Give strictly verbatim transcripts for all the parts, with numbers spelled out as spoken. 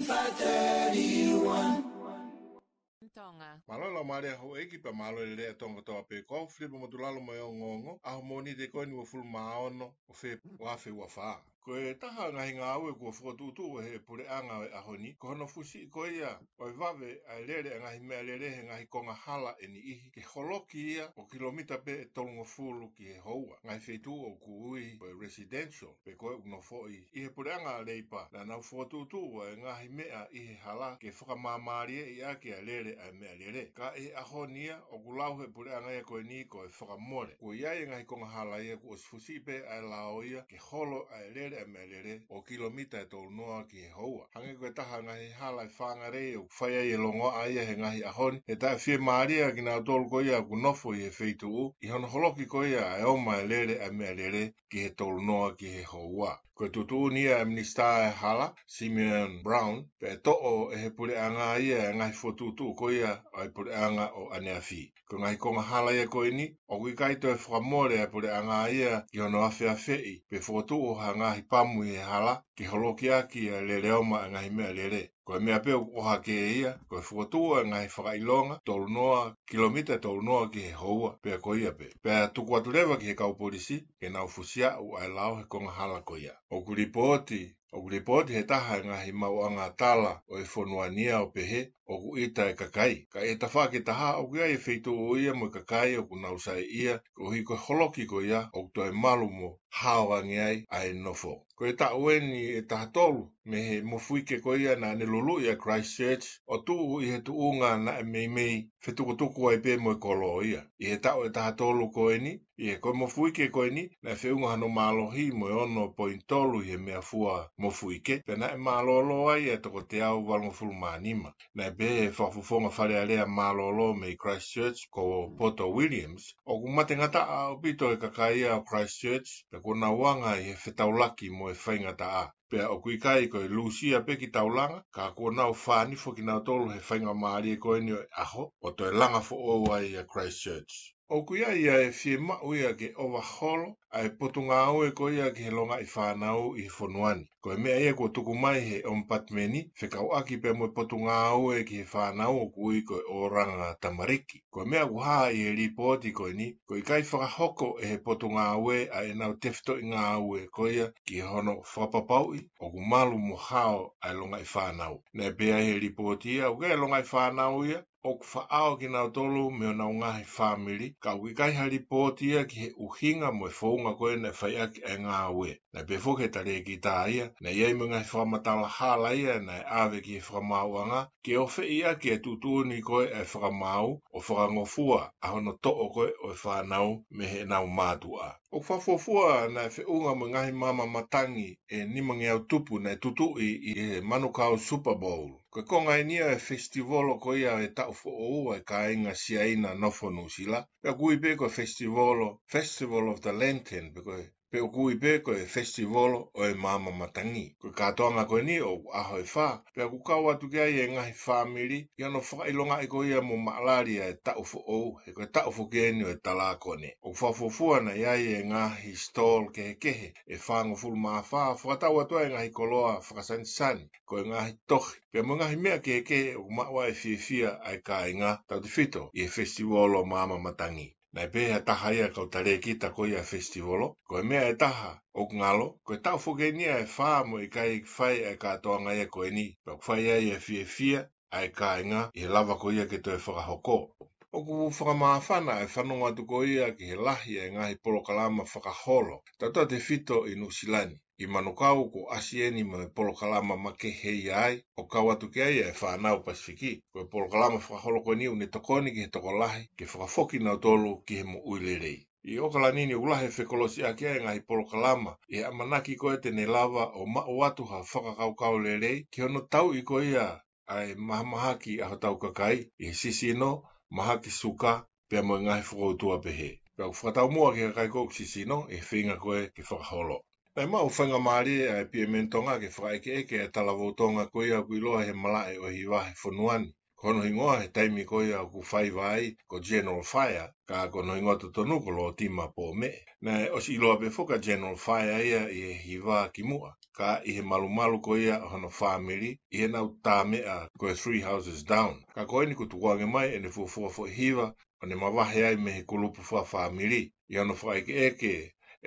five thirty-one. Tonga. Mālō e laumālie ʻa houʻeiki pea mālō e lelei ʻa Tonga kotoa pē, ko au Filipa Motulalo mo e ongoongo ʻa e Mōnite ko eni uofulu mā ono ʻo Fēpueli ua afe ua fā. Ko e taha e ngaahi ngāue kuo fokotuʻutuʻu ʻe he puleʻanga ʻo e ʻaho ni, ko hono fusiʻi ko ia ʻo e vave ʻa e lele ʻa e ngaahi meʻalele he ngaahi konga hala ʻe niʻihi, ke holoki ia ʻo kilomita pē ʻe tolungofulu ki he houa, ngaahi feituʻu ʻoku ui ko e residential, pe ko e ʻoku nofoʻi. ʻI he puleʻanga Leipa, naʻa nau fokotuʻutuʻu ʻa e ngaahi meʻa ʻi he hala ke fakamāmālieʻi ʻaki ʻa e lele ʻa e meʻalele. Ka ʻi he ʻaho ni ia, ʻoku lau ʻe he puleʻanga ia ko eni ko e fakamole. Kuo ʻi ai e ngaahi konga hala ia kuo ʻosi fusiʻi pē ʻa e lao ia ke holo ʻa e lele ʻa e meʻalele ʻo kilomita ʻe tolunoa ki he houa. Hangē ko e taha e ngaahi hala ʻi Whangarei ʻoku fai ai e longoaʻa ia he ngaahi ʻaho ni, he taʻe fiemālie kinautolu ko ia ʻoku nofo ʻi he feituʻu ʻi hono holoki ko ia ʻa e ʻomai e lele ʻa e meʻalele ki he tolunoa ki he houa. Ko e tuʻutuʻuni ia ʻa e Minisitā ʻo e Hala, Simeon Brown, pea toʻo ʻe he puleʻanga ia e ngaahi fokotuʻutuʻu ko ia ʻa e puleʻanga ʻo ʻaneafi. Ko e ngaahi konga hala ia ko eni, ʻoku ʻikai toe fakamole ʻa e puleʻanga ia ki hono afeafeʻi pe fokotuʻu ha ngaahi pamu ʻi he hala ke holoki ʻaki ʻa e lele ʻomai ʻa e ngaahi meʻalele. Ko e meʻa pē ʻoku ʻohake ia, ko e fokotuʻu ʻa e ngaahi fakaʻilonga, tolunoa, kilomita ʻe tolunoa ki he houa, pea ko ia pē. Pea tuku atu leva ki he kau polisi ke nau fusiaʻu ʻa e lao he konga hala ko ia. ʻOku lipooti, ʻoku lipooti ʻe he taha e ngaahi maʻuʻanga tala ʻo e fonua ni ia ʻo pehē ʻoku ʻita e kakai. Ka ʻi he tafaʻaki ʻe taha, ʻoku ʻi ai e feituʻu ia mo e kakai ʻoku nau saiʻia koeʻuhi ko e holoki ko ia ʻoku toe malu mo hao ange ai ʻa e nofo. Ko e taʻu eni ʻe taha tolu mei he mofuike ko ia naʻa ne luluʻi ʻa Christchurch ʻo tuʻu ʻi he tuʻunga naʻe meimei fetukutuku ai pē mo e kolo ia. ʻI he taʻu ʻe taha tolu ko eni, ʻi he ko e mofuike ko eni, naʻe feʻunga hano mālohi mo e ono poini tolu ʻi he meʻafua mofuike, pea naʻe mālōlō ai ʻa e toko teau valungofulu mā nima. Naʻe pehē ʻe he fakafofonga Fale Alea mālōlō mei Christchurch ko Poto Williams, ʻoku matengataʻa ʻaupito e kakai ia ʻo Christchurch, pea kuo nau anga ʻi he fetaulaki mo e faingataʻa. Pea ʻoku ʻikai ko e lūsia pē kitaulanga, ka kuo nau fānifo kinautolu he faingamālie ko eni ʻo e ʻaho, ʻo toe langa foʻou ai ʻa Christchurch. ʻOku ʻi ai ʻa e fiemaʻu ia ke ʻovaholo ʻa e potungāue ko ia ki he longaʻi fānau ʻi he fonua ni. Ko e meʻa ia kuo tuku mai ʻe he ʻOmipatimeni fekauʻaki pea mo e potungāue ki he fānau ʻoku ui ko e ʻoranga tamariki. Ko e meʻa ʻoku hā ʻi he lipooti ko eni, ko e ʻikai fakahoko ʻe he potungāue ʻa ʻenau tefitoʻi ngāue ko ia ki hono fakapapauʻi ʻoku malu mo hao ʻa e longaʻi fānau. Naʻe pehē ʻe he lipooti ia, ʻoku ʻi ai e longaʻi fānau ia ʻoku faʻao kinautolu mei honau ngaahi fāmili, ka ʻoku ʻikai ha lipooti ia ki he ʻuhinga mo e founga ko ē naʻe fai ʻaki ʻa e ngāue. Naʻe pehē foki ʻe he talēkita ia, naʻe ʻi ai mo e ngaahi fakamatala hala ia naʻe ʻave ki he fakamaauʻanga, ke ofeʻi ʻaki e tuʻutuʻuni ko ē ʻa e fakamaau ʻo fakangofua ʻa hono toʻo ko ē ʻo e fānau mei heʻenau mātuʻa. ʻOku fakafuofua naʻe feʻunga mo e ngaahi maama matangi ʻe nimangeau tupu naʻe tutuʻi ʻi he Manukau Super Bowl. Ko e konga eni ia e festivolo ko ia e taʻu foʻou ʻa e kāinga Siaina nofo Nuʻusila. Pea ʻoku ui pē ko e festivolo, Festival of the Lantern, pe ko e, pe ʻoku ui pē ko e festivolo ʻo e maama matangi. Ko e kātoanga ko eni ʻoku ʻaho ʻe fā, pea ʻoku kau atu ki ai e ngaahi fāmili, ʻi hono fakaʻilongaʻi ko ia mo maʻalali ʻa e taʻu foʻou, he ko e taʻu foki eni ʻo e talākone. ʻOku fakafuofua naʻe ʻi ai e ngaahi stall kehekehe ʻe fāngofulu mā fā, fakatau atu ai e ngaahi koloa fakasanisani, ko e ngaahi tohi, pea mo e ngaahi meʻa kehekehe ʻoku maʻu ai e fiefia ʻa e kāinga, tautefito ʻi he festivolo maama matangi. Naʻe pehē ʻe ha taha ia e kau talēkita ko ia e festivolo, ko e meʻa ʻe taha ʻoku ngalo, ko e taʻu foki eni ia ʻe fā mo e ʻikai fai ʻa e kātoanga ia ko eni, pea ʻoku fai ai e fiefia ʻa e kāinga ʻi he lava ko ia ke toe fakahoko. ʻOku fakamāfana e fanongo atu ko ia ki he lahi e ngaahi polokalama fakaholo, tautautefito ʻi Nuʻusila ni. ʻI Manukau kuo ʻasi eni mo e polokalama makehe ia ai, ʻo kau atu ki ai e fānau Pasifiki. Ko e polokalama fakaholo ko eni ʻoku ne tokoni ki he tokolahi ke fakafoki kinautolu ki he moʻui lelei. ʻI ʻOkalani ni ʻoku lahi e fekolosiʻaki ʻa e ngaahi polokalama ʻi he ʻamanaki ko ē te ne lava ʻo maʻu atu ha fakakaukau lelei ki hono tauʻi ko ia ʻa e mahamahaki ʻa hotau kakai ʻi he sisino, mahaki suka, pea mo e ngaahi fokoutua pehē. Pea ʻoku fakataumuʻa ki he kakai ko ē ʻoku sisino ʻi he feinga ko ē ke fakaholo. Naʻe maʻu faingamālie ʻa e Piemeni Tonga ke fakaʻekeʻeke ʻa e talavou Tonga ko ia ʻoku ʻiloa he malaʻe ʻo e hiva he fonua ni. Ko hono hingoa he taimi ko ia ʻoku faiva ai ko General Fire, ka ko hono hingoa totonu ko Lōtima Pōmeʻe. Naʻe ʻosi ʻiloa pē foki ʻa General Fire ia ʻi he hiva kimuʻa, ka ʻi he malumalu ko ia ʻo hono fāmili ʻi heʻenau tā meʻa ko e Three Houses Down. Ka ko eni kuo tukuange mai ʻene fuofua foʻi hiva ʻo ne mavahe ai mei he kulupu fakafāmili. ʻI hono fakaʻekeʻeke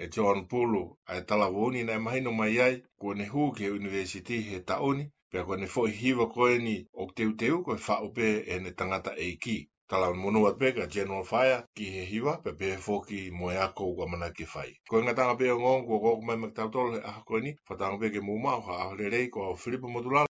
ʻe John Pulu ʻa e talavou ni, naʻe mahino mai ai kuo ne hū ki he ʻunivēsiti he taʻu ni, pea ko ʻene foʻi hiva ko eni ʻoku teuteu ko e faʻu pē ʻene tangataʻeiki. Talamonū atu pē kia General Fire ki he hiva, pea pehē foki mo e ako ʻoku ʻamanaki ke fai. Ko e ngataʻanga pē ʻo e ongoongo kuo ʻoku mai maʻa kitautolu he ʻaho ko eni, fakatauange pē ke mou maʻu ha ʻaho lelei. Ko au Filipo Motulala.